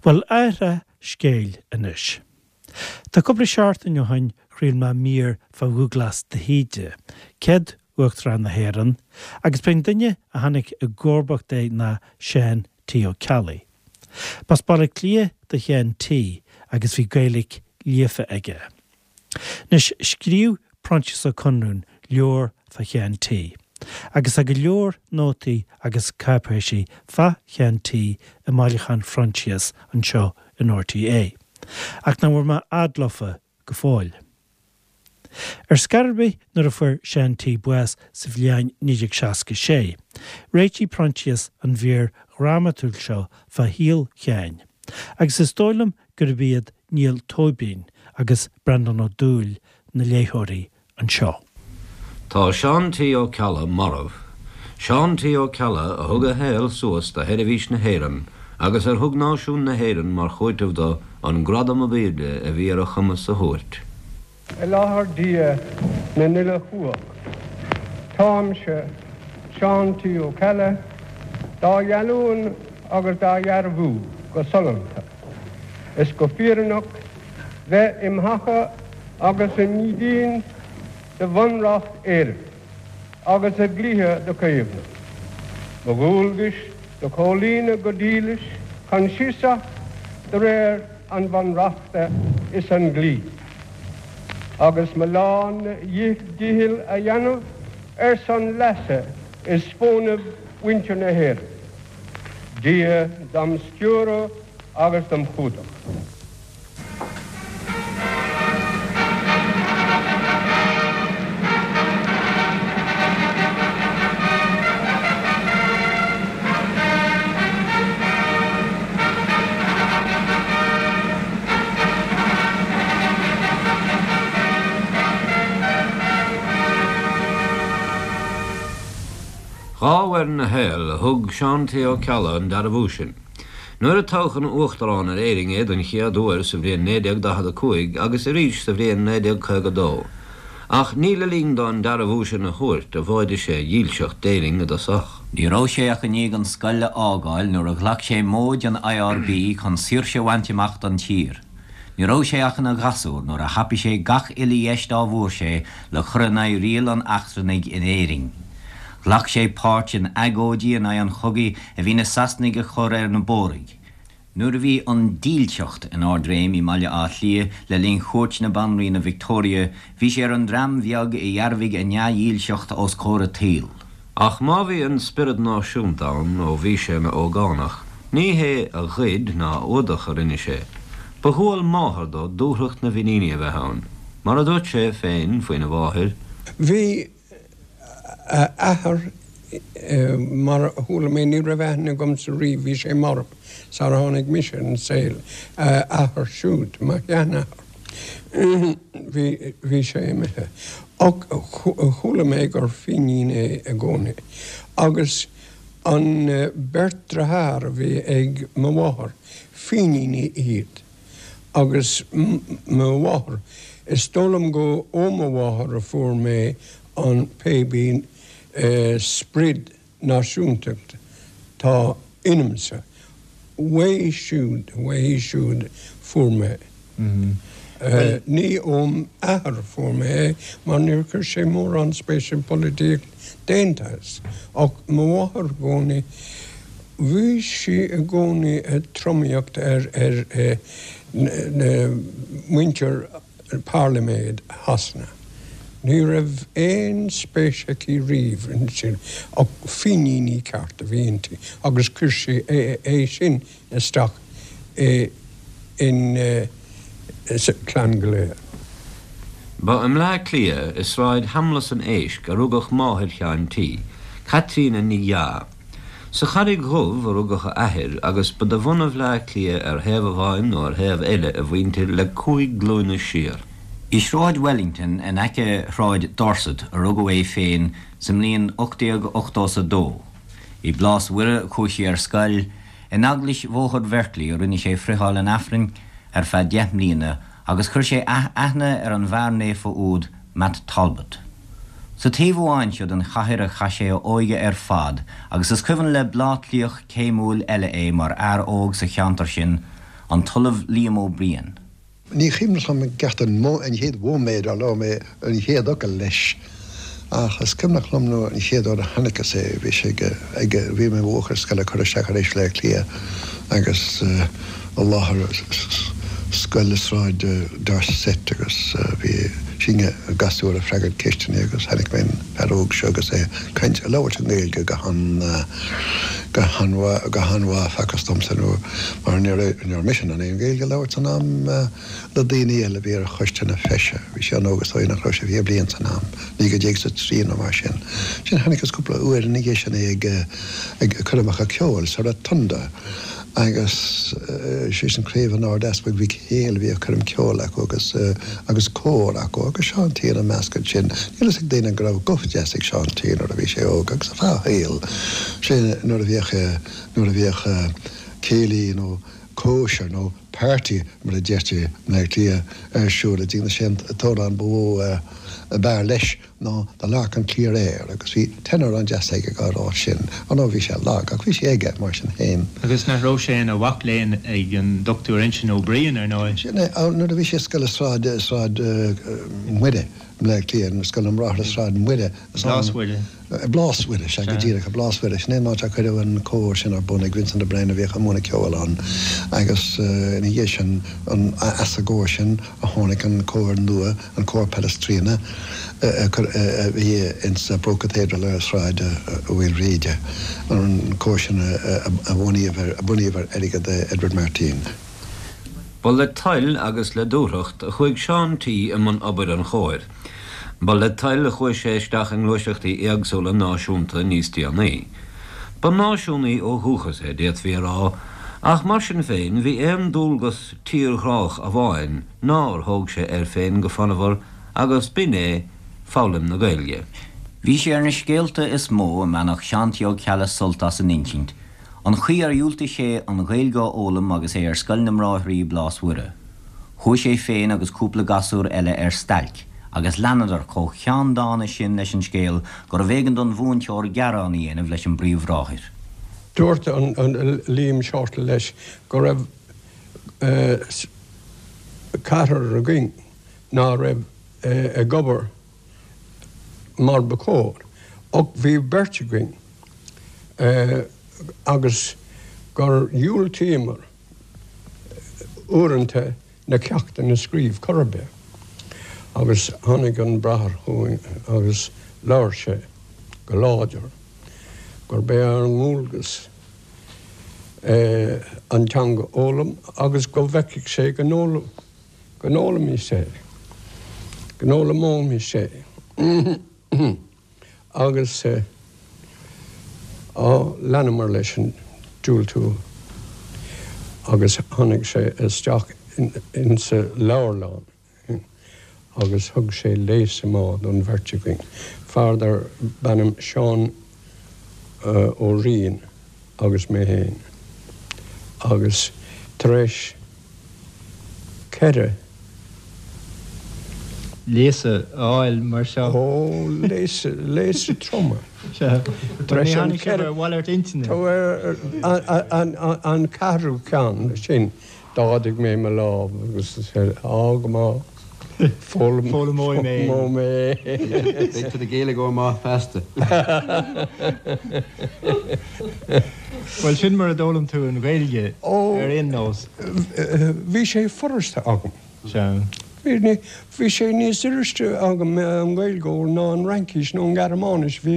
Bhuel, athrá scéil anois. Tá cúpla seachtain ó shin chraol mé mír fá Dhúglas de hÍde, céad Uachtarán na hÉireann, agus b'é an duine a tháinig i gcomharbacht air ná Seán T. Ó Ceallaigh. B'as Baile Átha Cliath do Sheán T agus bhí Gaeilge líofa aige. Anois, scríobh Proinsias Ó Conrúin leabhar fá Sheán T. Agus tá go leor nótaí agus cáipéisí fá Sheán T i mbailiúchán Phroinsias anseo in RTÉ, ach nach bhfuair mé fhad leofa go fóill. Ar scor ar bith nuair a fuair Seán T bás sa bhliain 1966, réitigh Proinsias an mhír dhrámatúil seo fá shaol Sheáin, agus is dóigh liom gurb iad Niall Tóibín agus Breandán Ó Dúill na léitheoirí anseo. Tá Seán T. Ó Ceallaigh marbh. Seán T. Ó Ceallaigh a thug a shaol suas do sheirbhís na hÉireann agus ar thug náisiún na hÉireann mar chúiteamh do an gradam ab aoirde a bhí ar a chumas a thabhairt. I láthair Dia na n-uile chumhacht, táimse, Seán T. Ó Ceallaigh, dá gheallúin agus dá dhearbhú go sollúnta is go fírinneach bheith im thaca agus im dhídean do Bhunreacht Éireann agus a dhlíthe do chaomhnú, mo dhualgais do chomhlíonadh go dílis coinsiasach de réir an Bhunreachta is an dlí, agus mo lán-dhícheall a dhéanamh ar son leasa is fónaimh mhuintir na hÉireann. Dia dom stiúradh agus dom chumhdach. Dhá uair ina shaol a thug Seán T. Ó Ceallaigh an dearbhú sin. Nuair a toghadh ina Uachtarán ar Éirinn é don chéad uair sa bhliain 1945 agus arís sa bhliain 1952. Ach ní le linn dó an dearbhú sin a thabhairt a mhóidigh sé a dhílseacht d'Éirinn i dtosach. Ní raibh sé ach i ndiaidh an scoil a fhágáil nuair a ghlac sé móid an IRB chun saoirse a bhaint amach don tír. Ní raibh sé ach ina ghasúr nuair a thapaigh sé gach uile dheis dá bhfuair sé le cur in aghaidh riail an eachtrannaigh in Éirinn. Ghlac sé páirt in agóidí in aghaidh an chogaidh a bhí na Sasanaigh a chur ar na Bóraigh. Nuair a bhí an dílseacht in ardréim i mBaile Átha Cliath le linn chuairt na Banríona Victoria, bhí sé ar an dream bheag a dhearbhaigh a ndea-dhílseacht os comhair an tsaoil. Ach má bhí an spiorad náisiúnta ann ó bhí sé ina ógánach, ní hé a ghoid ná a fhuadach a rinne sé. Ba dhual máthar dó dúthracht na bhFiníní a bheith ann. Mar a dúirt sé féin faoina mháthair. Bhí a athair, mar a chuala mé, ní raibh aithne agamsa riamh, bhí sé marbh sar a tháinig mise ar an saol, a athair siúd, mo sheanathair. Bhí, bhí sé imithe. Ach chuala mé gur Fínín é i gcónaí. Agus an beirt driotháir a bhí ag mo mháthair, Fíníní iad. Agus mo mháthair, is dóigh liom go ó mo mháthair a fuair mé an pébí sprid náisiúntacht tá ionamsa. Uaithi siúd, uaithi siúd fuair mé. Ní óm athair fuair mé é mar níor chuir sé mórán spéise i bpolaitíocht d'aon tsaghas. Ach mo mháthair i gcónaí, bhí sí i gcónaí ag tromaíocht ar ar na muintir Pairliméid Shasana. Ní raibh aon spéis aici riamh ansin ach Fíníní ceart a bhí inti agus chuir sí é sin isteach in sa chlann go léir. Ba i mBleá Cliath, i Sráid Sheamlas an Éisc, a rugadh máthair Sheáin T, Caitríona Ní Dheá. Sa Charraig Dhubh a rugadh a athair agus ba de bhunadh Bhleá Cliath ar thaobh amháin nó ar thaobh eile a mhuintir le cúig glúine siar. I Sráid Wellington in aice Shráid Dorset a rugadh é féin sa mbliain 1882. I bPlás Mhuire a chuaigh sé ar scoil, in Eaglais Bhóthar Bherkeley a rinne sé friotháil an Aifrinn ar feadh deich mbliana agus chuir sé aithne ar an bhfear naofa úd Matt Talbot. Sa taobh amháin seo den chathair a chaith sé a óige ar fad agus is cuimhin le Bleá Cliathach céimiúil eile é mar fhear óg sa cheantar sin. An tOllamh Liam Ó Briain. Ní cuimhneach liom i gceart an chéad mhóiméad ar labhair mé an chéad fhocal leis ach is cuimhneach liom nuair an chéad uair a chonaiceas é, bhí sé ag, ag, bhí mé i mo bhuachaill scoile curtha isteach ar ais Bhaile Átha Cliath agus i láthair scoil i Sráid Dorset agus bhí sinne gasúir ag freagairt ceisteanna agus chonaic mé an fear óg seo agus é ag caint, ag labhairt i nGaeilge go han, go han-mhaith, go han-mhaith facthas domsa nó mar ní raibh, ní raibh mise in ann aon Ghaeilge a labhairt san am le daoine eile a bhí ar choiste na feise. Bhí sé an-óg is dóigh nach raibh sé 20 bliain san am, 19 is a 3 nó mar sin. Ansin chonaiceas cúpla uair ina dhiaidh sin é ag, ag coirmeacha ceoil sa Rotunda agus sé sin craobh an Ard-Easpaig Mhic Héil a bhí ag coirm ceoil acu agus, agus cór acu agus Seán T ina measc ansin. Níl fhios ag daoine go raibh guth deas ag Seán T nuair a bhí sé óg agus ar feadh a shaoil, sé nuair a bhíodh, nuair a bhíodh céilí nó cóisir nó party mar a deirtí i mBleá Cliath ar siúl i dtigh na sé an t-amhrán ba mhó ab fhearr leis ná The Lark on Clear Air agus bhí tenor an-deas aige á rá sin. Ar ndóigh bhí sé lag ach bhí sé aige mar sin féin. Agus nach raibh sé ina mhac léinn ag an Dr Uinseann Ó Briain, ar ndóigh? Sin é, nuair a bhí sé i scoil i Sráid, Sráid Mhuire i mBleá Cliath, Scoil na mBráithre Sráid Mhuire. Blás Mhuire. Blás Mhuire, sea, go díreach, Blás Mhuire. Sin é an áit ar cuireadh an cór sin ar bun ag Vincent O'Brien a bhíodh ag múineadh ceoil ann agus ina dhiaidh sin, as an gcór sin a tháinig an cór nua, an Cór Palestrina, a bhí ins an Pro Cathedral ar Shráid Mhaoilbhríde, an cór sin a bunaíodh ar airgead Edward Martyn. Ba le toil agus le dúthracht a chuaigh Seán T i mbun obair an chóir. Ba le toil a chuaigh sé isteach i ngluaiseachtaí éagsúla náisiúnta níos déanaí. Ba náisiúnaí ó dhúchas é, d'fhéadfaí a rá, ach mar sin féin bhí aon dualgas tírghrách amháin nár thóg sé air féin go fonnmhar agus b'in é foghlaim na Gaeilge. Bhí sé ar na scéalta is mó a mbainfeadh Seán T. Ó Ceallaigh sult as a n-insint, an chaoi ar dhiúltaigh sé an Ghaeilge a fhoghlaim agus é ar Scoil na mBráithrí i Blás Mhuire. Chuaigh sé féin agus cúpla gasúr eile ar stailc agus leanadar chomh ceanndána sin leis an scéal gurbh éigean don mhúinteoir gearán a dhéanamh leis an bpríomhbhráthair. Dúirt an Liam Shortall leis go raibh ceathrar againn ná raibh ag obair mar ba chóir ach bhí beirt againn agus gur dhiúltaíomar uaireanta na ceachtanna a scríobh chor ar bith. Agus tháinig an bráthair chugainn agus labhair sé go láidir gurb é ár ndualgas an teanga a fhoghlaim agus go bhfeicfeadh sé go bhfoghlaimeoimis é, go bhfoghlaimeoimis é. Agus leanamar leis an diúltú agus tháinig sé isteach insa leabharlann agus thug sé léasadh maith don bheirt againn, fear dar b'ainm Seán Ó Riain agus mé féin. Agus tar éis 4. Léasadh a fháil mar seo. Ó, léasadh, léasadh troma. Sea. Tar éis an ceithre. Ar mhalairt intinne. An ceathrú ceann sin, d'ardaigh mé mo lámh agus á go maith, foghlaimeoidh mé. Foghlaimeoidh mé. Beidh tú i do Ghaeilgeoir maith feasta. Bhuel, sin mar a d'fhoghlaim tú an Ghaeilge ar aon nós. Bhí sé furasta agam. Sea. Bhí sé níos furaiste agam an Ghaeilge ná an Fhraincis nó an Ghearmáinis bhí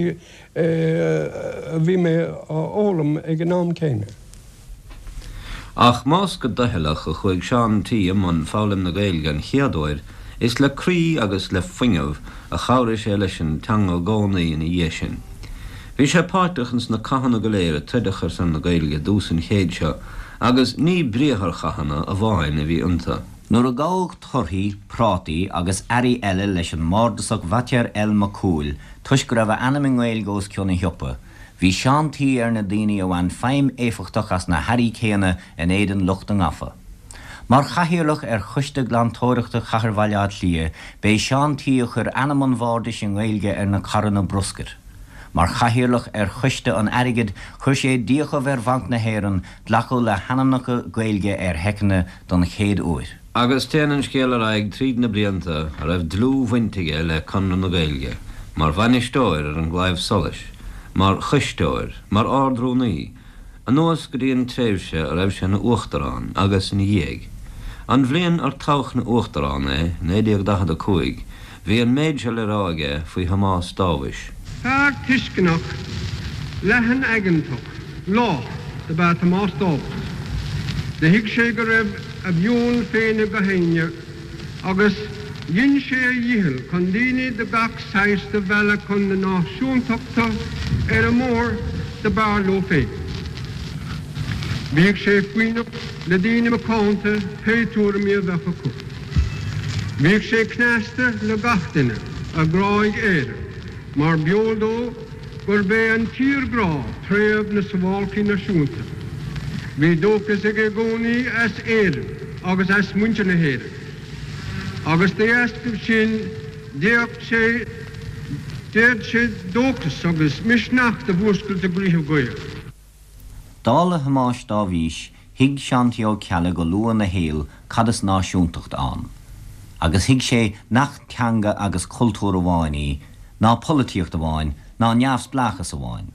a bhí mé á fhoghlaim ag an am céanna. Ach más go doicheallach a chuaigh Seán T i mbun foghlaim na Gaeilge an chéad uair, is le croí agus le fuinneamh a chabhraigh sé leis an teanga i gcónaí ina dhiaidh sin. Bhí sé páirteach ins na cathanna go léir a troideadh ar son na Gaeilge i dtús an chéid seo agus ní briatharchathanna amháin a bhí iontu. Nuair a gabhadh torthaí, prátaí agus earraí eile leis an mbardasach Bhaitéir L. Mac Cumhaill toisc go raibh a ainm i nGaeilge os cionn a shiopa, bhí Seán T. ar na daoine a bhain feidhm éifeachtach as na hearraí céanna in éadan lucht a ngafa. Mar chathaoirleach ar Choiste Glantóireachta Chathair Bhaile Átha Cliath, b'é Seán T. a chuir ainm an bhardais i nGaeilge ar na carranna bruscair. Mar chathaoirleach ar Choiste an Airgid chuir sé d'fhiachaibh ar Bhanc na hÉireann glacadh le hainmneacha Gaeilge ar sheiceanna don chéad uair. Agus téann an scéal ar aghaidh tríd na blianta a raibh dlúthbhaint aige le Conradh na Gaeilge, mar bhainisteoir ar an gClaidheamh Soluis, mar choisteoir, mar Ard-Rúnaí, anuas go dtí an tréimhse a raibh sé ina Uachtarán agus ina dhiaidh. An bhliain ar toghadh ina Uachtarán é, 1945, bhí an méid seo le rá aige faoi Thomás Dáibhis. Fear tuisceanach, leathan-aigeantach, lách dob ea Tomás Dáibhis. Do thuig sé go raibh a mheon féin ag gach éinne agus dhein sé a dhícheall chun daoine de gach saghas do mhealladh chun na náisiúntachta ar an mbóthar do b'fhearr leo féin. Bhíodh sé foighneach le daoine macánta pé tuairimí a bheadh acu. Bhíodh sé cneasta le gach duine a ghráigh Éire mar b'eol dó gurb é an tírghrá préamh na suáilcí náisiúnta. Bhí dóchas aige i gcónaí as Éirinn agus as muintir na hÉireann, agus de dheascaibh sin d'fhéadfadh sé d'fhéad sé dóchas agus misneach do mhúscailt i gcroíthe Gael. Dála Thomáis Dáibhís, thuig Seán T. Ó Ceallaigh go luath ina shaol cad is náisiúntacht ann. Agus thuig sé nach teanga agus cultúr amháin í, ná polaitíocht amháin, ná neamhspleáchas amháin.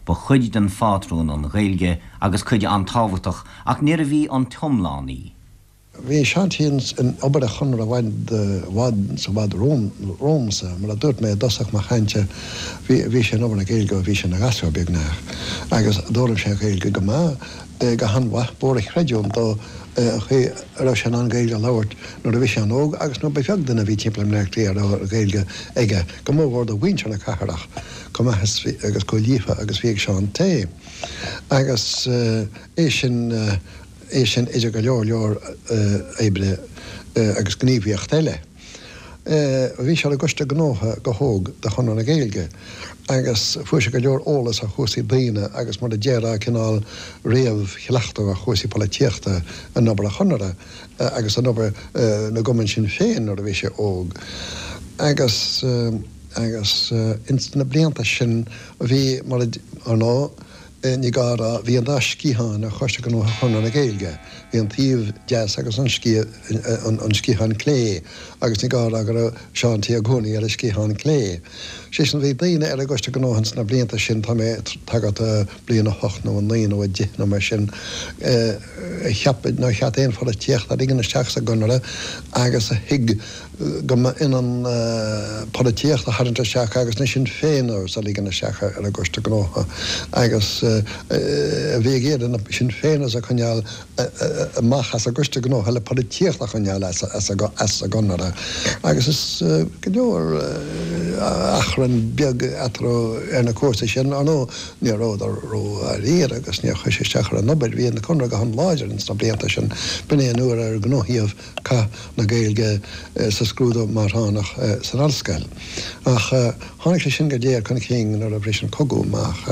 Ba chuid den phátrún an Ghaeilge agus cuid an-tábhachtach ach níorbh í an t-iomlán í. Bhí Seán T. in obair an Chonartha i bhfad, i bhfad, i bhfad romhamsa. Mar a dúirt mé i dtosach mo chainte, bhí, bhí sé in obair na Gaeilge ó bhí sé ina ghasúr, beagnach. Agus d'fhoghlaim sé an Ghaeilge go maith, go han-mhaith. B'mhór an chreidiúint dó an chaoi a raibh sé in ann Gaeilge a labhairt nuair a bhí sé an-óg agus nuair ba bheag duine a bhí timpeall i mBleá Cliath a raibh Gaeilge aige, go mórmhór de mhuintir na cathrach, chomh maith is bhí, agus chomh líofa agus bhí ag Seán T. Agus é sin. é sin idir go leor leor oibre agus gníomhaíocht eile. Bhí sé ar an gCoiste Gnótha go hóg de Chonradh na Gaeilge agus fuair sé go leor eolas ar chúrsaí daonna agus mar a déarfá cineál réamhchleachtadh ar chúrsaí polaitíochta in obair an Chonartha agus in obair na gcumann sin féin nuair a bhí sé óg. Agus agus ins na blianta sin bhí mar a ar ndóigh Ní gá a rá, bhí an dá sciathán ar Choiste Gnótha Chonradh na Gaeilge, bhí an taobh deas agus an sciathán clé, agus ní gá a rá go raibh Seán T i gcónaí ar an sciathán clé. Sé sin, bhí daoine ar an gCoiste Gnótha ins na blianta sin, tá mé ag tagairt do bliain 8 nó 9 nó 10 nó mar sin, a cheap nár cheart aon pholaitíocht a ligean isteach sa gConradh agus a thuig go mba ionann polaitíocht a tharraingt isteach agus na Sinn Féiners a ligean isteach ar an gCoiste Gnótha agus a bhí ag iarraidh na Sinn Féiners a choinneáil amach as an gCoiste Gnótha le polaitíocht a choinneáil as an gConradh agus is go leor achrann beag eatarthu ar na cúrsaí sin. Ar ndóigh ní rabhadar ródháiríre agus níor chuir sé isteach ar an obair. Bhí an Conradh go han-láidir ins na blianta sin. B'in é an uair ar gnóthaíodh Cath na Gaeilge sa scrúdú máithreánach san ollscoil. Ach tháinig sé sin go léir chun cinn nuair a bhris an cogadh amach.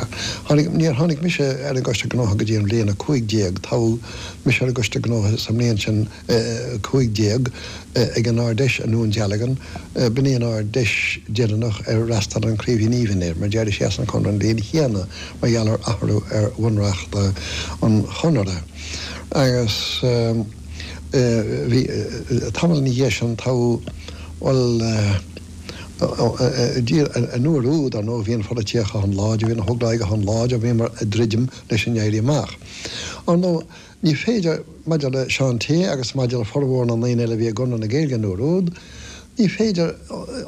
Tháinig, níor tháinig mise ar an gCoiste Gnótha go dtí an bhliain 15. Toghadh mise ar an gCoiste Gnótha sa mbliain sin 15 ag an Ard-Fheis i nDún Dealgan. B'in í an Ard-Fheis deireanach ar fhreastail an Craoibhín Aoibhinn air, mar d'éirigh sé as an Chonradh an bhliain chéanna mar gheall ar athrú ar bhunreacht an Chonartha. Agus. Bhí, tamall ina dhiaidh sin, toghadh, bhuel, an uair úd, ar ndóigh, bhí an pholaitíocht go han-láidir, bhí na hÓglaigh go han-láidir, bhíomar ag druidim leis an Éirí Amach. Ar ndóigh, ní féidir, maidir le Seán T. agus maidir le formhór na ndaoine eile a bhí i gConradh na Gaeilge an uair úd, ní féidir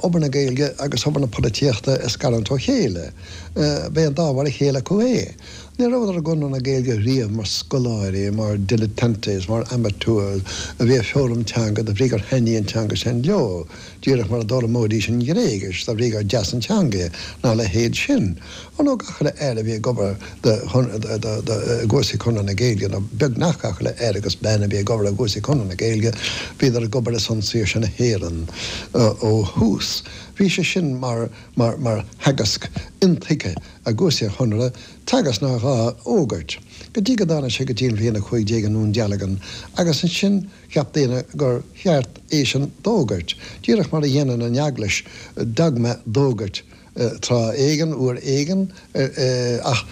obair na Gaeilge agus obair na polaitíochta a scarúint ó chéile. B'é an dá mhar a chéile acu é. Ní rabhadar i gConradh na Gaeilge riamh mar scoláirí, mar dilettantes, mar amateurs a bhí ag foghlaim teanga de bhrí gur thaitnigh an teanga sin leo, díreach mar a d'fhoghlaimeoidís an Ghréigis de bhrí gur deas an teanga í, ná a leithéid sin. Ar ndóigh, gach uile fhear a bhí ag obair i gcúrsaí Chonradh na Gaeilge, nó beagnach gach uile fhear agus bean a bhí ag obair i gcúrsaí Chonradh na Gaeilge, bhíodar ag obair ar son saoirse na hÉireann ó thús. Bhí sé sin mar theagasc intuigthe i gcúrsaí an Chonartha, teagasc nár ghá a fhógairt, go dtí go dtáinig sé go dtí an bhliain 15 i nDún Dealgan, agus ansin cheap daoine gur cheart é sin d'fhógairt, díreach mar a dhéanann an Eaglais dogma d'fhógairt. tráth éigin, uair éigin, ach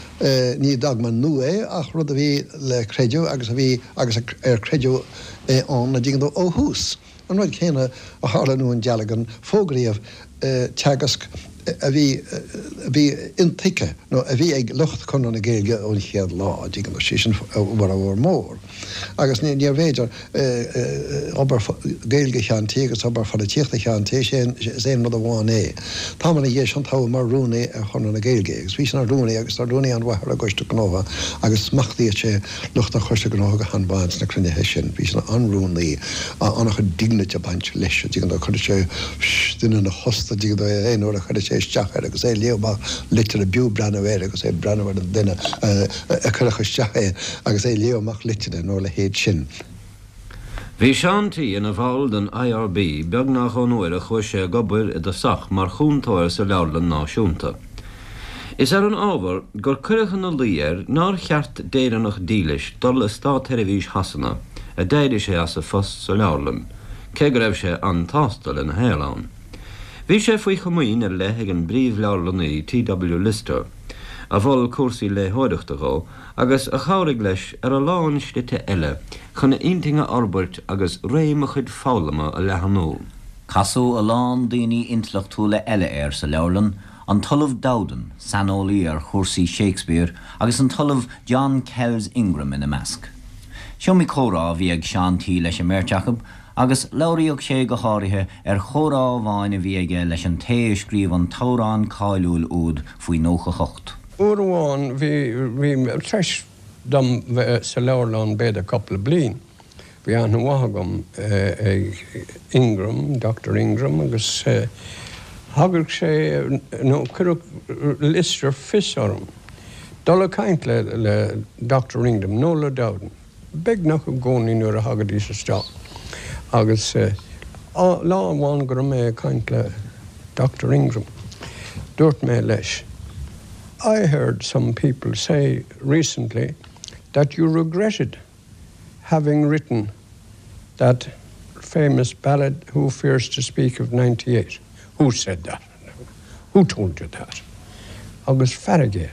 ní dogma nua é ach rud a bhí le creideamh agus a bhí agus ar creideadh é ann, an dtuigeann tú, ó thús. An rud céanna a tharla i nDún Dealgan, fógraíodh teagasc a bhí, a bhí intuigthe nó a bhí ag lucht Chonradh na Gaeilge ón chéad lá, an dtuigeann tú, sé sin a bhformhór mór. Agus níorbh fhéidir obair Gaeilge Sheáin T agus obair pholaitíochta Sheáin T, is aon rud amháin é. Tamall ina dhiaidh sin toghadh mar rúnaí ar Chonradh na Gaeilge é agus bhí sé ina rúnaí agus ina rúnaí an-mhaith ar an gCoiste Gnótha agus smachtaíodh sé lucht an Choiste Gnótha go han-mhaith ins na cruinnithe sin. Bhí sé ina an-rúnaí, an-chuid dignity ag baint leis, an dtuigeann tú, chuireadh sé duine ina thost, an dtuigeann tú, aon uair a chuireadh sé isteach air agus é ag léamh amach litreacha b'fhiú breathnú air agus é ag breathnú ar an duine a chuirfeadh isteach é agus é ag léamh amach litreacha nó a leithéid sin. Bhí Seán T. ina bhall den IRB beagnach ón uair a chuaigh sé ag obair i dtosach mar chúntóir sa Leabharlann Náisiúnta. Is ar an ábhar gur cuireadh ina luí air nár cheart d'Éireannach dílis dul i státsheirbhís Shasana a d'éirigh sé as a phost sa leabharlann, cé go raibh sé an-tsásta lena shaol ann. Bhí sé faoi chomaoin ar leith ag an bpríomh-leabharlannaí T. W. Lister, a mhol cúrsaí léitheoireachta dhó agus a chabhraigh leis ar a lán slite eile chun a intinn a fhorbairt agus réim a chuid foghlama a leathnú. Casadh a lán daoine intleachtúla eile air sa leabharlann, an tOllamh Dowden, saineolaí ar chúrsaí Shakespeare, agus an tOllamh John Kells Ingram ina measc. S'iomaí comhrá a bhí ag Seán T. leis an mbeirt acu, agus labhraíodh sé go háirithe ar chomhrá amháin a bhí aige leis an té a scríobh an t-amhrán cáiliúil úd faoi 98. Uair amháin bhí, bhí, tar éis dom bheith sa leabharlann b'fhéidir cúpla bliain, bhí aithne mhaith agam ag Ingram, Doctor Ingram, agus thagadh sé, nó cuireadh Lister fios orm dul ag caint le, le Doctor Ingram nó le Dowden. beagnach i gcónaí nuair a thagaidís isteach agus lá amháin go raibh mé ag caint le Doctor Ingram dúirt mé leis I heard some people say recently that you regretted having written that famous ballad Who Fears to Speak of 98. Who said that? Who told you that? Agus fearg air.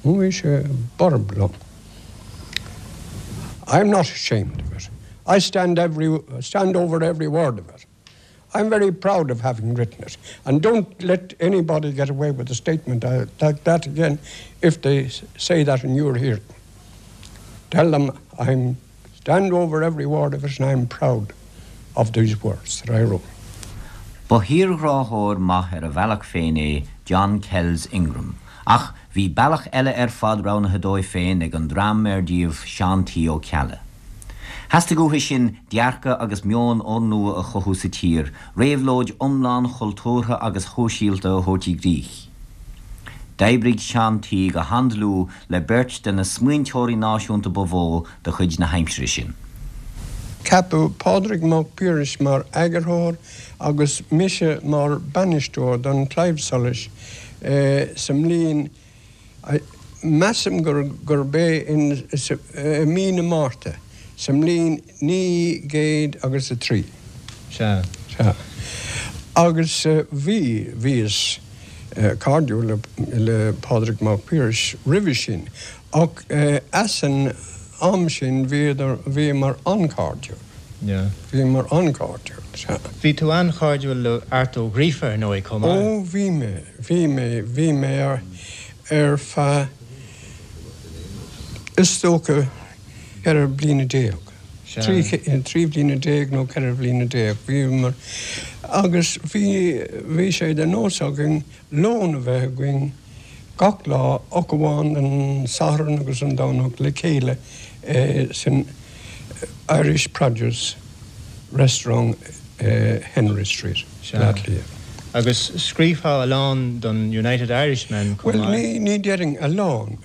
Bhí sé borb liom. I'm not ashamed of it. I stand every stand over every word of it. I'm very proud of having written it. And don't let anybody get away with a statement like that again if they say that and you're here. Tell them I'm stand over every word of it and I'm proud of these words that I wrote. Ba thírghráthóir maith ar a bhealach féin é John Kells Ingram, ach bhí bealach eile ar fad roghnaithe dóibh féin ag an dream ar díobh Seán T. Ó Ceallaigh. Theastaigh uathu sin dearcadh agus meon úrnua a chothú sa tír, réabhlóid iomlán chultúrtha agus shóisialta a thabhairt i gcrích. D'oibrigh Seán T. go han-dlúth le beirt de na smaointeoirí náisiúnta ba mhó de chuid na haimsire sin. Ceapadh Pádraig Mac Piarais mar eagarthóir agus mise mar bainisteoir don Claidheamh Soluis sa mbliain, measaim gurb é in i mí na Márta sa mbliain 900 agus a 3. Sea. Sea. Agus bhí, bhíos cairdiúil le Pádraig Mac Piarais roimhe sin Ach as an am sin bhíodar, bhíomar an-chairdiúil. Yeah. Bhíomar an-chairdiúil, sea. Bhí tú an-chairdiúil le Art Ó Gríofa, ar ndóigh, chomh maith. Ó, bhí mé, bhí mé, bhí mé ar, ar feadh, is dócha, 14 bliana. Sea. 13 bliana nó 14 bhliana, bhíomar, agus bhí, bhí sé de nós againn lón a bheith againn gach lá ach amháin an Satharn agus an Domhnach le chéile san Irish Produce Restaurant i Henry Street, Bleá Cliath. Agus scríobhfá a lán don United Irishman chomh maith? Bhuel, ní déarfainn a lán.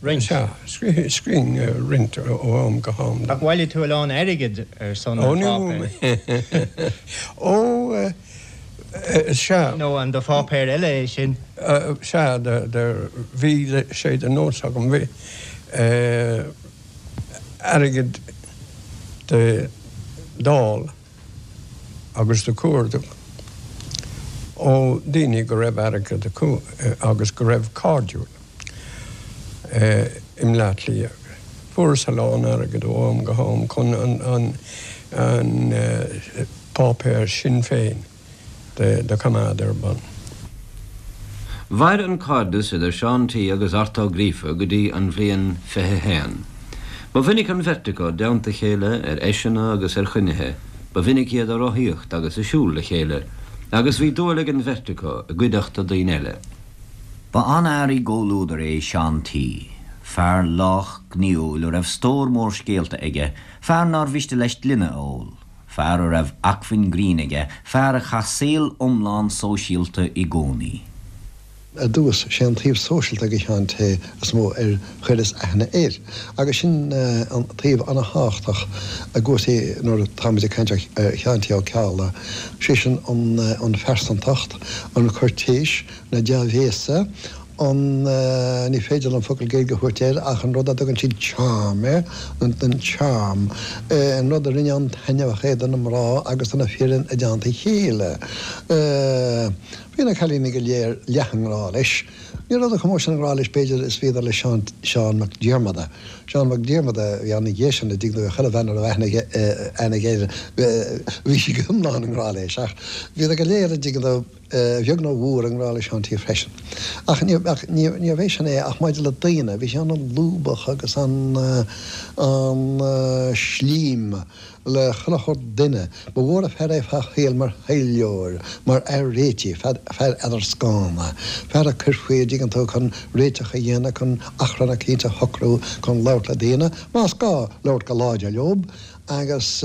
Roinnt. Sea, scríobhainn roinnt ó am go ham. Ach bhailigh tú a lán airgid ar son an pháipéir. Ó, sea. Nó an do pháipéar eile é sin? Sea, bhí sé de nós agam, bhí airgead do fháil agus do chuardach. ó daoine go raibh airgead acu agus go raibh cairdiúil i mBleá Cliath. Fuaireas a lán airgid ó am go ham chun an páipéar Sinn Féin do choimeád ar bun. Mhair an cairdeas idir Seán T agus Art Ó Gríofa go dtí an bhliain 21. Ba mhinic an bheirt acu i dteannta a chéile ar fheiseanna agus ar chruinnithe, ba mhinic iad ag rothaíocht agus ag siúl le chéile, agus bhí dúil ag an bheirt acu i gcuideachta daoine eile. Ba an-fhear i gcomhluadar é Seán T. Fear lách gnaíúil a raibh stór mór scéalta aige, fear nár mhiste leis gloine a ól. Fear a raibh acmhainn grinn aige, fear a chaith saol iomlán sóisialta i gcónaí. Ar dtús, sé an taobh sóisialta de Sheán T is mó ar chuireas aithne air, agus sin an taobh ana-thábhachtach i gcúrsaí nuair atáimid ag caint ar Sheán T Ó Ceallaigh, sé sin an phearsantacht, an chuirtéis, na dea-bhéasa, an, ní féidir liom focal Gaeilge a thabhairt air ach an rud a dtugann siad charm air, an charm, an rud a rinne an-taitneamhach é do na mná agus do na fir i dteannta a chéile. Bhí na cailíní go léir leath i ngrá leis. Ní rabhadar chomh mór sin i ngrá leis b'fhéidir is bhíodar le Seán, Seán Mac Diarmada. Seán Mac Diarmada a bhí ann ina dhiaidh sin, a dtuigeann tú, chuile bhean a raibh aithne aige, aithne aige air, bhí sí go hiomlán i ngrá leis ach bhíodar go léir, a dtuigeann tú, a bheag nó a mhór, i ngrá le Seán T. freisin. Ach níorbh é sin é ach maidir le daoine, bhí sé an-lúbach agus an-slím le chuile shórt duine. Ba mhór an fear é fá shaol mar thaidhleoir, mar fhear réitigh, fear eadarscána, fear a chuirfí, a dtuigeann tú, chun réiteach a dhéanamh, chun achrann eicínt a shocrú, chun labhairt le daoine, más gá, labhairt go láidir leob. agus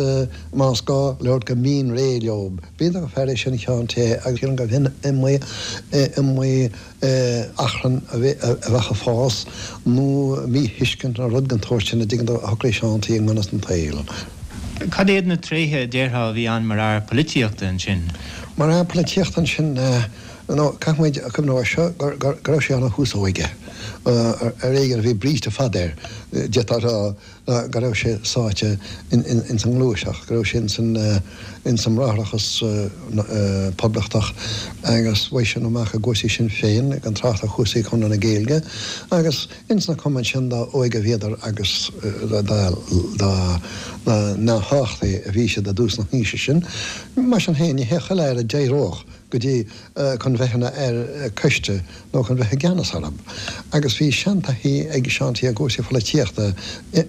más gá, labhairt go mín réidh leob. B'iontach an fear é sin Seán T. agus sílim gurbh shin iomaí achrann a bheadh ag fás nó míthuiscint nó rud den tsórt sin a dtuigeann tú a shocraigh Seán T. i ngan fhios don tsaol. Cad iad na tréithe a déarfá a bhí ann mar fhear polaitíochta ansin? Mar fhear polaitíochta ansin, nó caithfimid cuimhneamh air seo go raibh sé ina thús óige. Ar éigean a bhí bríste fada air, d'fhéadfá a rá. go raibh sé sáite ins an ngluaiseacht, go raibh sé ins an mBráithreachas Poblachtach agus bheadh sé amach i gcúrsaí Sinn Féin, gan trácht ar chúrsaí Chonradh na Gaeilge, agus ins na cumainn sin dá óige a bhíodar agus dá neamhthábhachtaí a bhí siad i dtús na haoise sin. Mar sin féin, ní hé chuile fhear a d'éireodh go dtí chun bheith ina fhear coiste nó chun bheith i gceannas orthu. Agus bhí seantaithí ag Seán T. i gcúrsaí pholaitíochta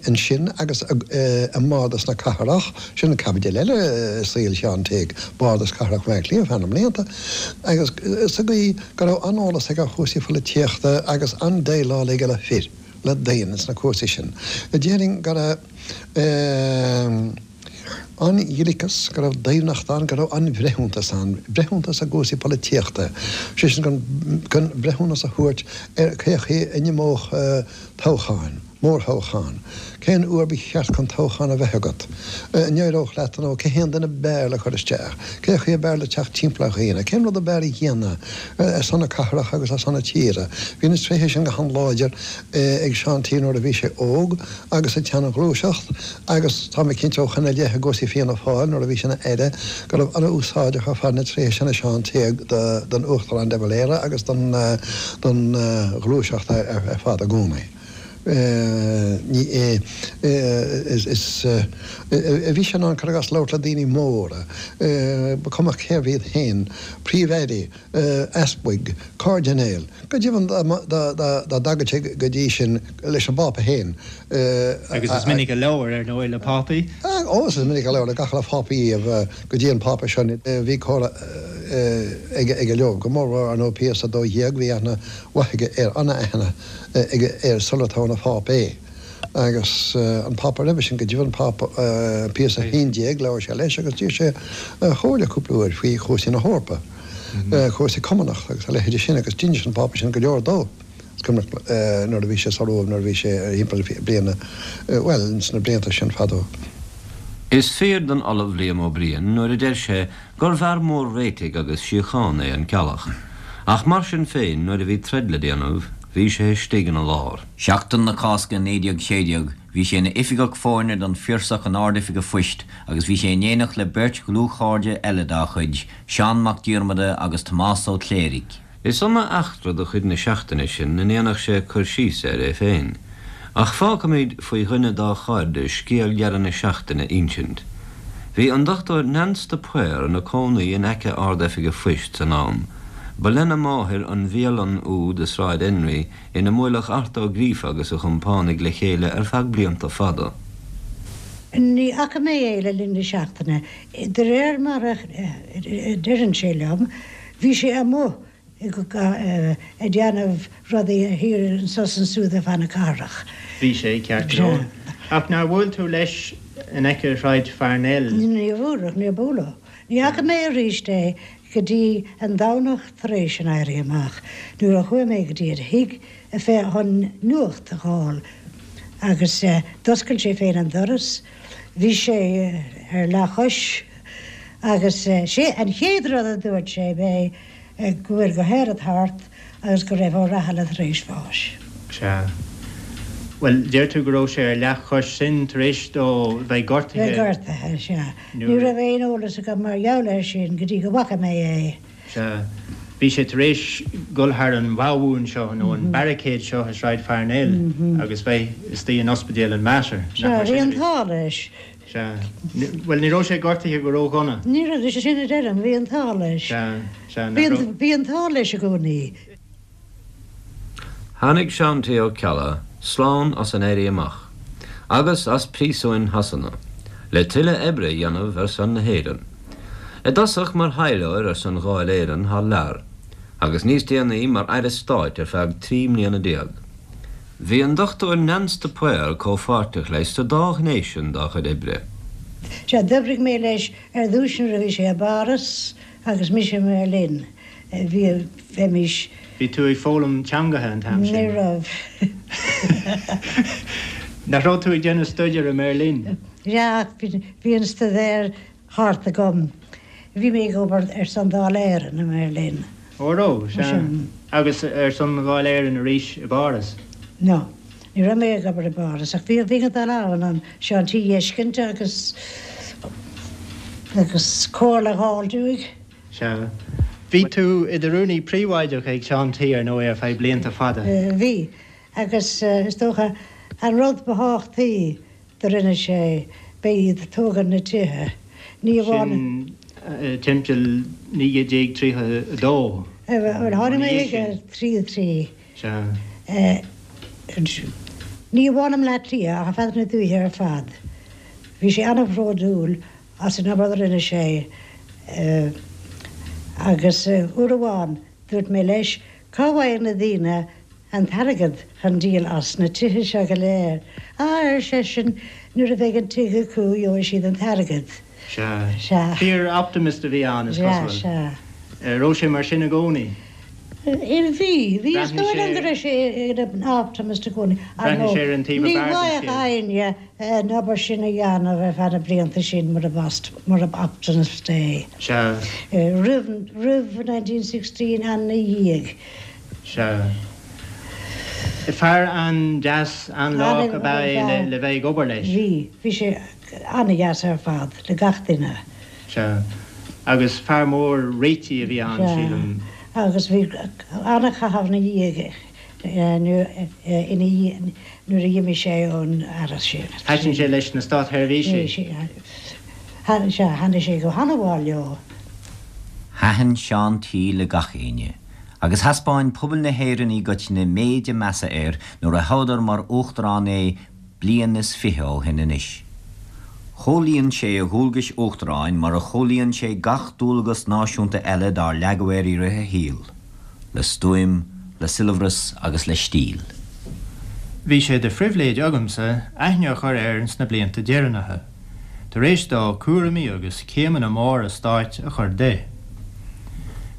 ansin agus i mBardas na Cathrach, sin caibidil eile i saol Sheáin T, Bardas Cathrach Bhaile Átha Cliath feadh na mblianta, agus sa gcaoi go raibh an-eolas aige ar chúrsaí pholaitíochta agus an-déileáil aige le fir, le daoine sna cúrsaí sin. Déarfainn go raibh. An-ghliceas, go raibh doimhneacht ann, go raibh an-bhreithiúntas ann, breithiúntas i gcúrsaí polaitíochta, sé sin chun breithiúnas a thabhairt ar cé chaoi a n-imeodh toghcháin, mórthoghchán, cén uair ba cheart chun toghchán a bheith agat, an éireodh leat nó cé hé an duine ab fhearr le cur isteach, cé chaoi ab fhearr le teacht timpeall ar dhaoine, cén rud ab fhearr a dhéanamh ar son na cathrach agus ar son na tíre. Bhí na tréithe sin go han-láidir ag Seán T. nuair a bhí sé óg agus i gceann an ghluaiseacht. Agus tá mé cinnte ó shoin i leith i gcúrsaí Fianna Fáil nuair a bhí sé ina Aire go raibh an-úsáideach ar fad na tréithe sin i Seán T. don Uachtarán de Valera agus don ghluaiseacht ar fad i gcónaí. Ní is bhí sé in ann, cuir i gcás, labhairt le daoine móra, ba chuma cérbh iad féin, príomh-airí, easpaig, cairdinéil, go deimhin dá dtagadh sé go dtí sin leis an bPápa féin. Agus is minic a labhair, ar ndóigh, le Pápaí. Ó, is minic a labhair le gach uile Phápa riamh go dtí an Pápa seo. Bhí comhrá aige leo, go mórmhór, ar ndóigh, Pius 12, bhí aithne mhaith aige air, an-aithne aige air sular toghadh ina Phápa é. Agus an Pápa roimhe sin, go deimhin, Pápa Pius 11, labhair sé leis agus d'iarr sé a chomhairle cúpla uair faoi chúrsaí na hEorpa, cúrsaí Cumannach agus a leithéide sin agus d'inis an Pápa sin go leor dó. Is cuimhneach nuair a bhí sé sa Róimh, nuair a bhí sé thimpeall bliana, bhuel, ins na blianta sin fadó. Is fíor don Ollamh Liam Ó Briain nuair a deir sé gur bhfear mór réitigh agus síochána é an Ceallach. Ach mar sin féin nuair a bhí troid le déanamh. Bhí sé istigh ina lár. Seachtain na Cásca 1916 bhí sé ina oifigeach foirne don Phiarsach in Ard-Oifig a' Phoist agus bhí sé in éineacht le beirt dhlúthchairde eile dá chuid, Seán Mac Diarmada agus Tomás Ó Cléirigh. Is iomaí eachtra de chuid na seachtaine sin a ndéanfadh sé cur síos air é féin, ach fágfaimid faoi dhuine dá chairde scéal dheireadh na seachtaine a insint. Bhí an Dr Neans de Paor ina cónaí in aice Ard-Oifig a' Phoist san am. Ba lena máthair an bhialann úd i Sráid Enrí ina mbuaileadh Art Ó Gríofa agus a chompánaigh le chéile ar feadh blianta fada. Ní fhaca mé é le linn na seachtaine. De réir mar a deireann sé liom, bhí sé amuigh ag déanamh rudaí thiar anso is ansúd ar feadh na cathrach. Bhí sé, ceart go leor. Ach nár bhuail tú leis in aice Shráid Pharnell? Níor bhuail, níor buaileadh. Ní fhaca mé arís é go dtí an Domhnach tar éis an Éirí Amach, nuair a chuaigh mé go dtí a thigh chun nuacht a dh'fháil agus d'oscail sé féin an doras. Bhí sé ar leathchois agus sé an chéad rud a dúirt sé b'é go bhfuil go háirid thart agus go raibh Ó Rathaille tar éis bháis. Sea. Bhuel, deir tú go raibh sé ar leathchois, sin tar éis dó bheith gortaithe. Bheith gortaithe, sea. Ní raibh aon eolas agam mar gheall air sin go dtí go bhfaca mé é. Sea. Bhí sé tar éis dul thar an bhabhún seo, nó an barricade seo i Sráid Pharnell agus bheith istigh in ospidéal an Mater. Sea, bhí an t-ádh leis. Sea. Bhuel, ní raibh sé gortaithe go ródhona. Ní raibh, is é sin a deirim, bhí an t-ádh leis. Sea, sea, nach raibh. Bhí an t-ádh leis i gcónaí. Tháinig Seán T. Ó Ceallaigh slán as an Éirí Amach agus as príosúin Shasana le tuilleadh oibre a dhéanamh ar son na hÉireann. I dtosach mar thaidhleoir ar son Dháil Éireann thar lear agus níos déanaí mar Aire Stáit ar feadh 13 mbliana. Bhí an Dr Neans de Paor comhpháirteach leis sa dá ghné sin dá chuid oibre. Sea, d'oibrigh mé leis ar dtúis nuair a bhí sé i bPáras agus mise i mBeirlin. Bhí, bheimis. Bhí tú ag foghlaim teangacha an t-am sin? Ní raibh. Nach raibh tú ag déanamh staidéir i mBeirlin? Sea, ach bhí an staidéar thart agam. Bhí mé ag obair ar son Dáil Éireann i mBeirlin. Ó raibh, sea. Agus ar son Dháil Éireann arís i bPáras? No. Ní raibh mé ag obair i bPáras ach bhí bhínn ag dul ann chun Seán T a fheiscint agus agus comhairle a dh'fháilt uaidh. Sea. Bhí tú i do rúnaí príobháideach ag Seán T ar ndóigh ar feadh blianta fada. Bhí. Agus is dócha an rud ba thábhachtaí do rinne sé, b'é iad tógaint na tithe. Ní amháin. Sin timpeall 1932. Bhuel, tháinig mé chuige 33. Sea. Ní amháin i mBleá Cliath ach ar feadh na dúiche ar fad. Bhí sé an-bhródúil as an obair a rinne sé agus uair amháin dúirt mé leis, cá bhfaigheann na daoine an t-airgead chun díol as na tithe seo go léir. Á, ar seisean, nuair a bheidh an tigh acu gheobhaidh siad an t-airgead. Sea. Sea. Fíor-optimist a bhí ann, is cosúil. Sea, sea. Raibh sé mar sin i gcónaí? Bhí, bhí. Is dóigh liom go raibh sé ina optimist i gcónaí. Ar ndóigh, Bhreathnaigh sé ar an taobh ní ab fhearr den bhfaigheadh scéal. éinne an obair sin a dhéanamh ar feadh na blianta sin murab optimist é. Sea. Roimh, roimh 1916 and ina dhiaidh. Sea. Fear an-deas, an-lách ab ea é le bheith ag obair leis. Bhí. Bhí sé an-deas ar fad le gach duine. Sea. Agus fear mór réitigh a bhí ann, sílim. Sea. Agus bhí an-chaitheamh ina dhiaidh, ina dhiaidh, nuair a d'imigh sé ón Aire sin. Thaitin sé leis na státsheirbhísigh. Sea, thaitnigh sé go han-mhaith leo. Thaitin Seán T le gach éinne. Agus thaispeáin pobal na hÉireann i gcoitinne méid a measa air nuair a thoghadar mar Uachtarán é bliain is fiche ó shin anois. Chomhlíon sé a dhualgais Uachtaráin mar a chomhlíon sé gach dualgas náisiúnta eile dár leagadh air i rith a shaoil, le stuaim, le soilbhreas agus le stíl. Bhí sé de phribhléid agamsa aithne a chur air sna blianta deireanacha. tar éis dó cúraimí agus céimeanna móra stáit a chur de.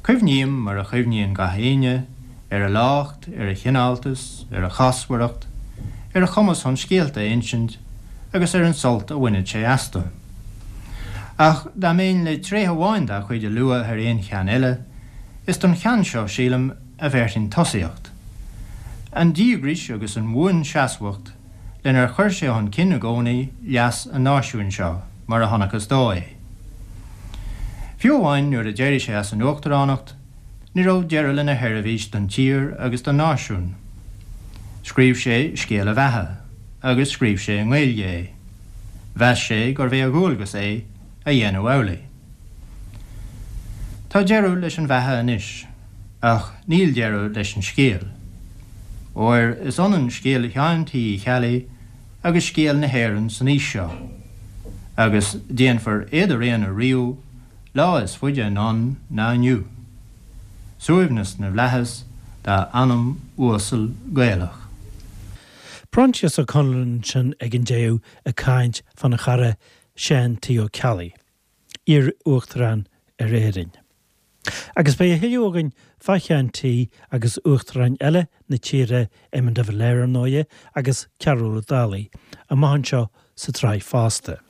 Cuimhním, mar a chuimhníonn gach éinne, ar a lácht, ar a chineáltas, ar a chásmhaireacht, ar a chumas chun scéalta a insint agus ar an sult a bhaineadh sé astu. Ach dá mbeinn le tréith amháin dá chuid a lua thar aon cheann eile, is don cheann seo, sílim, a bhéarfainn tosaíocht. An díograis agus an bhuanseasmhacht lenar chuir sé chun cinn i gcónaí leas an náisiúin seo mar a chonacthas dó é. Fiú amháin nuair a d'éirigh sé as an uachtaránacht, ní raibh deireadh lena sheirbhís don tír agus don náisiún. Scríobh sé scéal a bheatha, agus scríobh sé i nGaeilge é. Mheas sé gurbh é a dhualgas é a dhéanamh amhlaidh. Tá deireadh leis an bheatha anois, ach níl deireadh leis an scéal. Óir is ionann scéal Sheáin T. Uí Cheallaigh agus scéal na hÉireann san aois seo, agus déanfar éadaraonadh riamh lá is faide anonn ná inniu. Suaimhneas na bhFlaitheas dá anam uasal Gaelach. Proinsias Ó Conluain ansin ag an deireadh ag caint fána chara Seán T. Ó Ceallaigh, iar-Uachtarán ar Éirinn. Agus beidh a thuilleadh againn fá Sheán T. agus uachtaráin eile na tíre, Éamon de Valera ar ndóighe, agus Cearbhall Ó Dálaigh, amach anseo sa tsraith fosta.